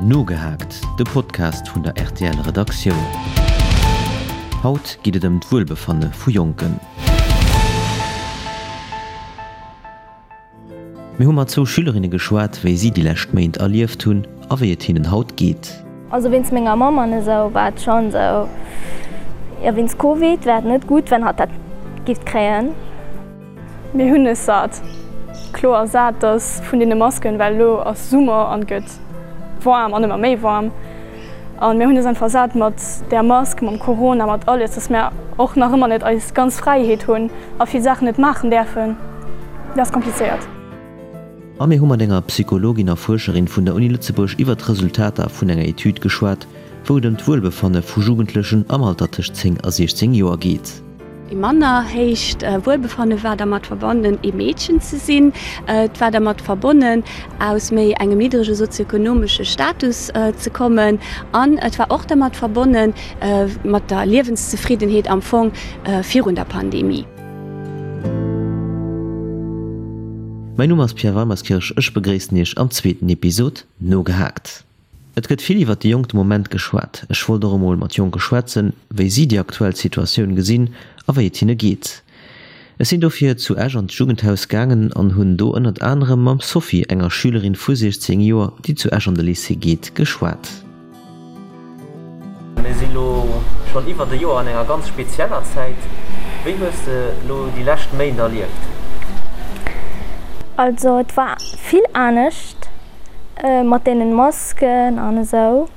Nogehaakt, de Podcast vun der rtl Redaktioun. Haut geet et ëm d'Wuelbefanne vu Jonken. Mir hu mat zwou Schülerinne geschwat, wéi si déi lescht Méint erlieft hunn a wéi et hinnen haut geet. Also wéinst menger Mamm an esou war et schonn esou, jo wéinst Covid wär et net gutt wenn hatt dat giff kréien. Mir hunn es sat, kloer sat, dass vun deene Masken, well elo ass Summer an et gëtt waarm an ëmmer méi waarm an mir hunn es einfach sat mat där Mask, mam Corona, mat alles, dass mir och nach ëmmer net eis ganz Fräiheet hunn a vill Saachen net maachen däerfen. Dat ass komplizéiert. A mir hu mat enger Psychologin a Fuerscherin vun der Uni Lëtzebuerg iwwer d'Resultater vun enger Etüd geschwat, wou et ëm d'Wuelbefanne vu Jugendlechen am Alter tëscht 10 a 16 Joer geet. Ee manner héicht Wuelbefanne war dermat verbonnen, ee Meedchen ze sinn. Et war dermat verbonnen, aus méi engem niddrege sozioekonomesche Status ze kommen. An et war och dermat verbonne mat der Liewenszefriddenheet am Fong virun der Pandemie. Mäin Numm ass Pierre Weimerskirch, ech begréissen Iech am zweeten Episod Nogehaakt. Et gëtt vill iwwert déi Jonk de Moment geschwat. Ech wollt och emol mat Jonke schwätzen, wéi si déi aktuell Situatioun gesinn a wéi et hinne geet. Ech sinn dofir zu Esch an d'Jugendhaus gaangen an hunn do ënnert anerem mam Sophie, enger Schülerin vu 16 Joer, déi zu Esch an de Lycée geet, geschwat. Mir si lo schonn iwwert e Joer an enger ganz spezieller Zäit. Wéi hues de lo déi lescht Méint erlieft? Also et war vill anescht mat deenen Masken an esou.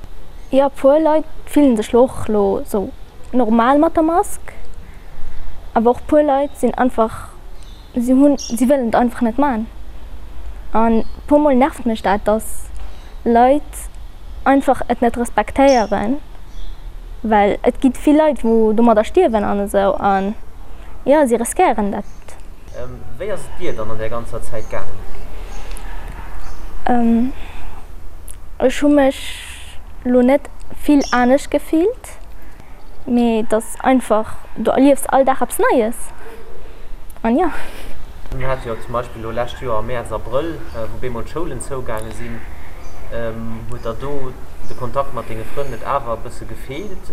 Jo puer Leit fillen sech lo och lo sou normal mat der Mask, awer och puer Leit sinn einfach, si hunn, si wëllen et einfach net man. An puer mol nervt mech dat, dass Leit einfach et net respektéieren, well et gi vill Leit wou domadder stierwen an esou an jo si riskéieren dat. Wéi ass et dir dann an där ganzer Zäit gaangen? Ech hu mech lo net vill anescht gefillt, mee et ass einfach, du erliefs all Dag eppes Neies an jo. Mir hate jo zum Beispill elo lescht Joer am Mäerz, Abrëll, wou bemol d'Schoulen zougaange sinn, huet der do de Kontakt mat denge Frënn net awer e bësse gefeelt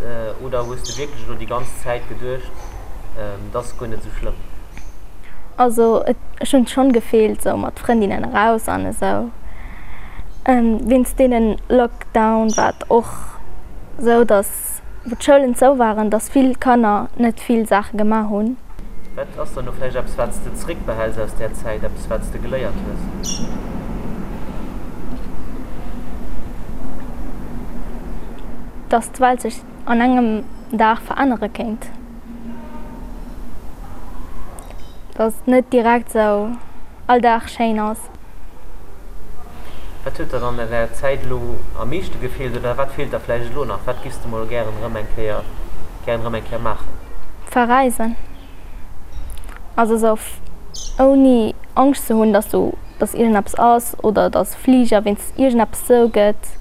oder hues de wierklech elo déi ganz Zäit geduecht, et ass guer net esou schlëmm? Also ech hunn schonn gefeelt sou mat Frëndinnen eraus an esou. Wéinst deenen Lockdown war et och sou dass wou d'Schoulen zou waren, dass vill Kanner net vill Saache gemaach hunn. Wat ass dann elo vläicht eppes wat s de zréckbehäls aus där Zäit, eppes wat s de geléiert hues? Dass d'Welt sech an engem Dag verännere kéint. Dass et net direkt sou all Dag schéin ass. Wat huet der dann an där Zäit elo am meeschte gefeelt oder wat feelt der vläicht elo nach? Wat giffs de mol gären erëm eng Kéier gären erëm eng Kéier maachen? Verreisen. Also sou ouni Angscht ze hunn, dass du dass iergendeppes ass oder dass Fliger wéinst iergendeppes zou gëtt.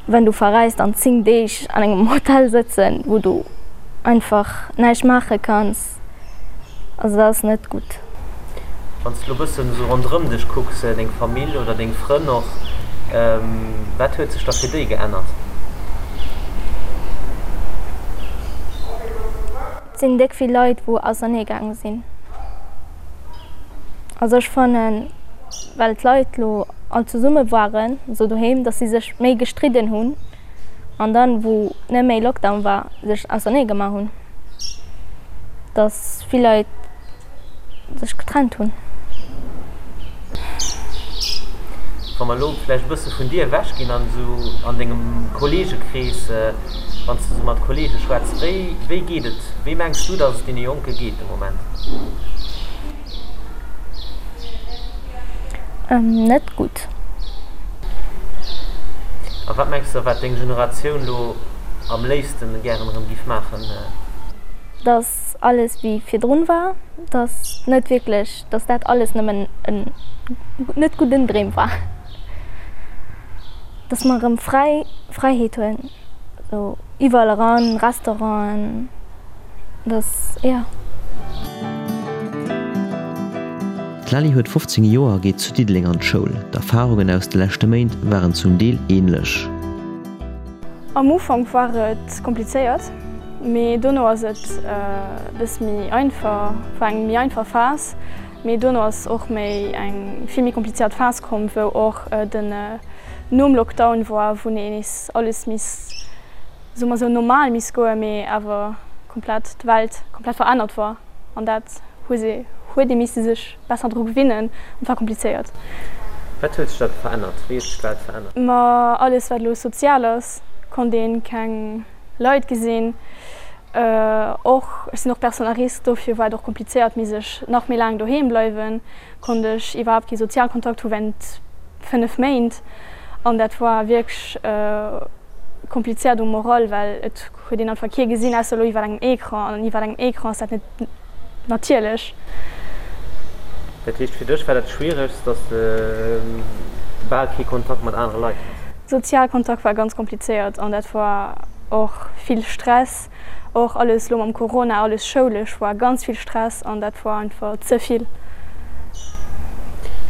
Wenn du verreist an 10 Deeg an engem Hotel sëtzen, wou du einfach näischt maache kanns, also dat ass net gutt. Wann s de elo bëssen esou ronderëm dech kucks, deng Famill oder deng Frënn och, wat huet sech da fir déi geännert? Et sinn déck vill Leit wou ausernee gaange sinn. Also ech fannen, well d'Leit lo all zesumme waren, esou doheem, dass si sech méi gestridden hunn an dann wou net méi Lockdown war, sech ausernee gemaach hunn. Dass vill Leit sech getrennt hunn. Wa mer elo vläicht e bësse vun dir ewech ginn an esou an dengem Kolleegekrees, wann s de esou mat Kolleege schwätz, wéi, wéi geet et, wéi mengs du, datt et deene Jonke geet de Moment? Net gutt. A wat mengs de, wat deng Generatioun elo am léifsten gären erëm giff maachen? Dass alles wéi virdrun war, dass net wierklech, dass dat alles nëmmen en net gudden Dreem war, dass mer erëm fräi Fräiheet hunn, sou iwwerall eran, Restauranten, dass, jo. D'Lali huet 15 Joer a geet zu Diddeleng an d'Schoul. D'Erfarungen aus de leschte Méint waren zum Deel änlech. Am Ufank war et komplizéiert, mee dono ass et e bësse méi einfach, war eng méi einfach Phas. Mee dono ass och méi eng vill méi komplizéiert Phas komm, wou och den nom Lockdown war, wou nees alles misst, soe mer sou, normal misst goen, mee awer komplett d'Welt komplett verännert war. An dat hu se, huet ee misse sech besser dru gewinnen an et war komplizéiert. Wat huet sech da verännert? Wéi huet sech d'Welt verännert? Ma alles wat elo sozial ass, konnt een keng Leit gesinn. Och ech sinn och Personne à risque, dofir war et och komplizéiert, misst ech nach méi laang doheem bleiwen, konnt ech iwwerhaapt kee Sozialkontakt hu während 5 Méint. An dat war wierklech komplizéiert um Moral, well et Huet een einfach kee gesinn, ausser elo iwwer engem Ecran. An iwwer engem Ecran ass dat net natierlech. Dat heescht, fir dech war dat Schwieregst, dass de bal kee Kontakt mat anere Leit has? Sozial Kontakt war ganz komplizéiert an dat war och vill Stress. Och alles elo mam Corona, alles schoulesch war ganz vill Stress an dat war einfach ze vill.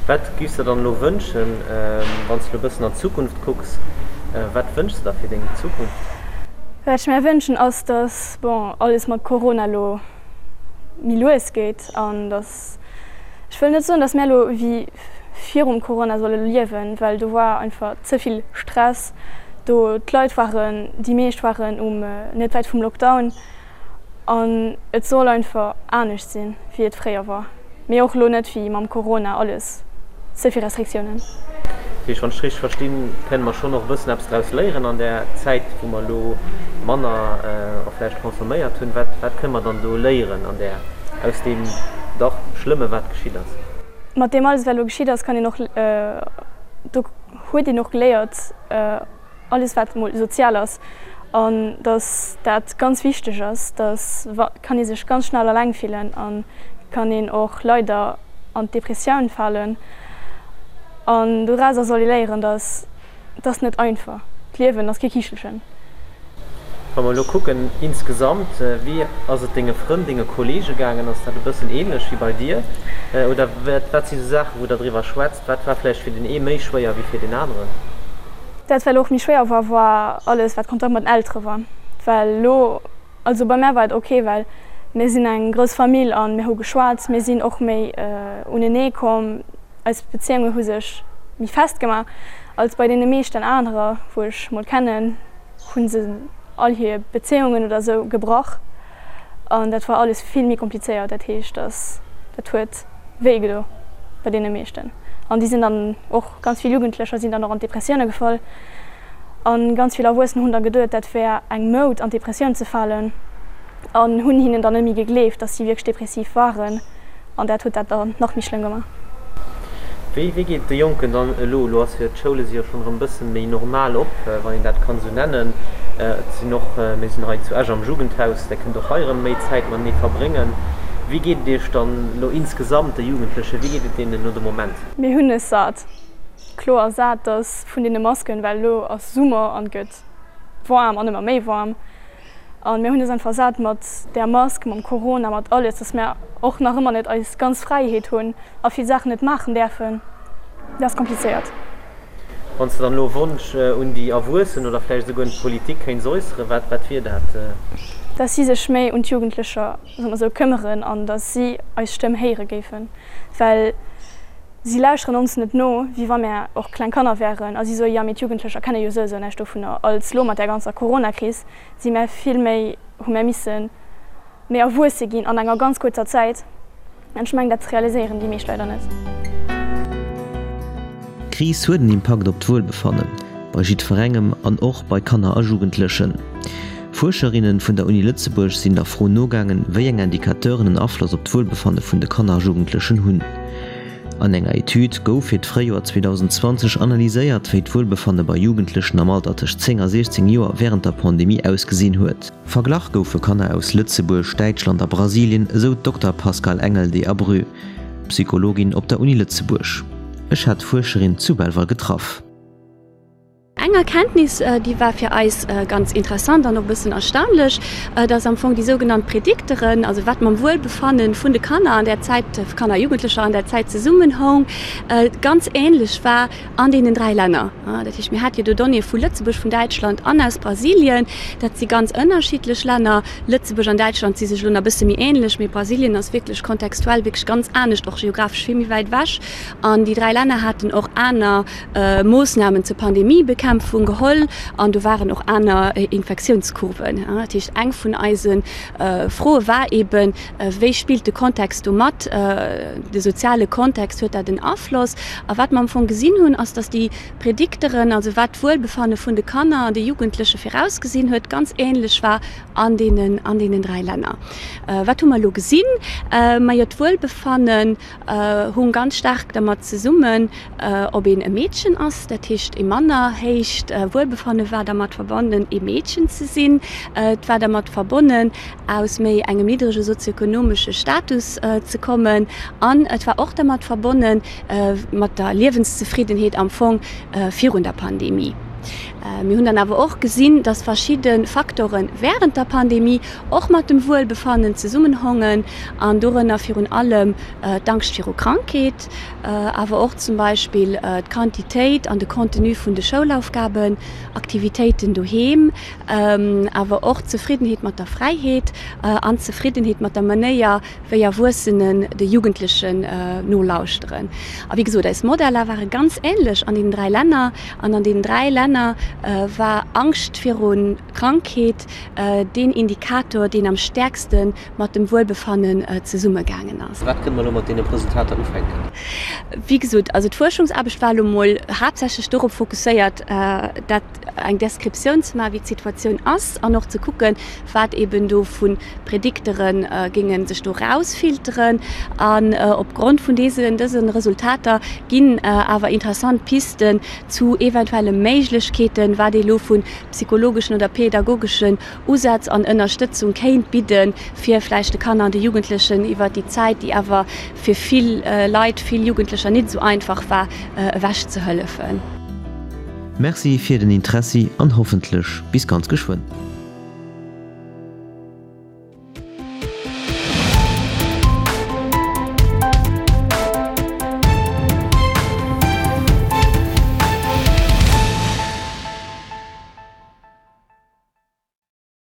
Wat giffs de dann elo wënschen, wann s de elo e bëssen an d'Zukunft kucks, wat wënschs de der fir deng Zukunft? Wat ech mär wënschen ass, dass, bon, alles mat Corona elo méi lues geet an dass, ech wëll net soen, dass mär elo wéi virum Corona solle liewen, well do war einfach ze vill Stress do, d'Leit waren, déi meescht waren um net wäit vum Lockdown. An et soll einfach anescht sinn, wéi et fréier war. Mee och elo net wéi mam Corona, alles ze vill Restriktiounen. Dat heescht, wann ech richteg verstinn, kënne mer schonn och e bëssen eppes draus léieren an där Zäit, wou mer elo manner och vläicht consomméiert hunn. Wat, wat kënne mer dann do léieren an där, aus deem dach Schlëmme wat geschitt ass? Mat deem alles, wat elo geschitt ass, kann een och, do huet een och geléiert, alles wat mol sozial ass an dass dat ganz wichteg ass, dass kann ee sech ganz schnell alleng fillen an kann een och leider an d'Depressioun falen an dorauser soll ee léieren, dass et ass net einfach, d'Liewen ass kee Kichelchen. Wa mer elo kucken insgesamt, wéi ass et denge Frënn, denge Kollege gaangen? Ass dat e bëssen ähnlech wéi bei dir oder wat si sou Saachen, wou der driwwer schwätzt? Wat war vläicht fir den ee méi schwéier wéi fir den aneren? Dat wat och méi schwéier war, war alles wat Kontakt mat den Eltere war. Well elo, also bei mär war et ok, well mir sinn eng grouss Famill a mir hu geschwat, mir sinn och méi unenee komm, eis Bezéiunge hu sech méi fest gemaach als bei deene meeschten anerer wou ech mol kennen, hu se all hir Bezéiungen oder esou gebrach an dat war alles vill méi komplizéiert. Dat heescht, dass dat huet. Wéi gedo bei deene meeschten. An déi sinn dann och, ganz vill Jugendlecher sinn dann och an d'Depressioune gefall. A ganz vill Erwuessen hunn da geduet, dat wär eng Moud an d'Depressioun ze falen an hunn hinnen dann net méi gegleeft, datt si wierklech depressiv waren. An dat huet dat dann nach méi schlëmm gemaach. Wéi wéi geet et de Jonken dann elo? Elo ass jo, d'Schoule si jo schonn erëm e bësse méi normal op, wann een dat kann esou nennen. Et sinn och, mir sinn hei zu Esch am Jugendhaus, där kënnt och hei erëm méi Zäit matenee verbréngen. Wéi geet et Iech dann elo insgesamt, de Jugendlechen, wéi geet et deenen elo de Moment? Mir hunn es sat, kloer sat, dass vun deene Masken, well elo ass Summer an et gëtt waarm an ëmmer méi waarm an mir hunn es einfach sat mat där Mask, mam Corona, mat alles, dass mir och nach ëmmer net eis ganz Fräiheet hunn a vill Saachen net maachen däerfen. Dat ass komplizéiert. Wann s de dann elo e Wonsch un déi Erwuessen oder vläicht esouguer un d'Politik kéints äusseren, wat, wat wier dat? Dass si sech méi un d'Jugendlecher, soe mer esou, këmmeren an dass si eis Stëmm héiere géifen, well si lauschteren ons net no, wéi wa mär och kleng Kanner wären a si soe, jo mee d'Jugendlecher kenne jo souesou näischt dovunner. Als lo mat där ganzer Coronakris si mär vill méi, hu mär missen méi erwuesse ginn an enger ganz kuerzer Zäit. An ech mengen, dat realiséieren déi meescht leider net. D'Kris huet en Impakt op d'Wuelbefannen, bei jiddwerengem an och bei Kanner a Jugendlechen. Fuerscherinnen vun der Uni Lëtzebuerg sinn der Fro nogaangen, wéi eng Indicateuren en Afloss op d'Wuelbefanne vun de Kanner a Jugendlechen hunn. An enger Etüd gouf fir d'Fréijoer 2020 analyséiert, wéi d'Wuelbefanne bei Jugendlechen am Alter tëscht 10 a 16 Joer wärend der Pandemie ausgesinn huet. Verglach goufe Kanner aus Lëtzebuerg, Däitschland a Brasilien, esou d'Dokter Pascale Engel de Abreu, Psychologin op der Uni Lëtzebuerg. Ech hat d'Fuerscherin zu Belval getraff. Eng Erkenntnis, déi war fir eis ganz interessant an och e bëssen erstaunlech, dass am Fong déi sougenannt Predikteren, also wat mam Wuelbefanne vun de Kanner an där Zäit, Kanner a Jugendlecher an där Zäit zesummenhoung, ganz änlech war an deenen 3 Länner. Dat heescht, mir hate jo do Donnéeë vu Lëtzebuerg, vun Däitschland an aus Brasilien. Dat si ganz ënnerschiddlech Länner. Lëtzebuerg an Däitschland si sech elo nach e bësse méi änlech, mee Brasilien ass wierklech kontextuell wierklech ganz anescht, och geographesch vill méi wäit ewech. An déi 3 Länner haten och aner Moossnamen zur Pandemiebekämpfung geholl an do waren och aner Infektiounskurven. Dat heescht, eng vun eise Froe war eeben, Wéi spillt de Kontext do mat, de soziale Kontext, huet dat en Afloss? A wat mer am Fong gesinn hunn, ass, datt déi Predikteren, also wat d'Wuelbefanne vun de Kanner an de Jugendleche virausgesinn huet, ganz änlech war an deenen, an deenen 3 Länner. Wat hu mer elo gesinn? Majo, d'Wuelbefannen hung ganz staark dermat zesummen, ob een e Meedchen ass, dat heescht ee manner héicht Wuelbefanne war dermat verbonnen, ee Meedchen ze sinn. Et war dermat verbonnen, aus méi engem niddrege sozioekonomesche Status ze kommen an et war och dermat verbonne mat der Liewenszefriddenheet am Fong virun der Pandemie. Mir hunn dann awer och gesinn, dass verschidde Faktore wärend der Pandemie och mat dem Wuelbefannen zesummenhongen an dorënner virun allem d'Angscht viru Krankheet, awer och zum Beispill d'Quantitéit an de Contenu vun de Schoulaufgaben, Aktivitéiten doheem, awer och d'Zefriddenheet mat der Fräiheet an d'Zefriddenheet mat der Manéier, wéi Erwuessenen de Jugendlechen nolauschteren. A wéi gesot, eis Modeller ware ganz änlech an deenen 3 Länner. An an deenen 3 Länner war Angscht viru Krankheet deen Indikator, deen am stäerkste mat dem Wuelbefannen zesummegaangen ass. Wat kënne mer elo mat deene Resultater ufänken? Wéi gesot, also d'Fuerschungsaarbecht war elo mol haaptsächlech dorop fokusséiert, dat eng Descriptioun ze maachen, wéi d'Situatioun ass an och ze kucken, wat eben do vu Prediktere géinge sech do rausfilteren. An opgrond vun deesen, dëse Resultater ginn awer interessant Pisten zu eventuelle Méiglechkeeten, wat ee lo vu psychologeschen oder pädagogeschen Usätz an Ënnerstëtzung kéint bidden, fir vläicht de Kanner an de Jugendlechen iwwert déi Zäit, déi awer fir vill Leit, vill Jugendlecher nit esou einfach war, ewech ze hëllefen. Merci fir den Interessi an hoffentlech bis ganz geschwënn.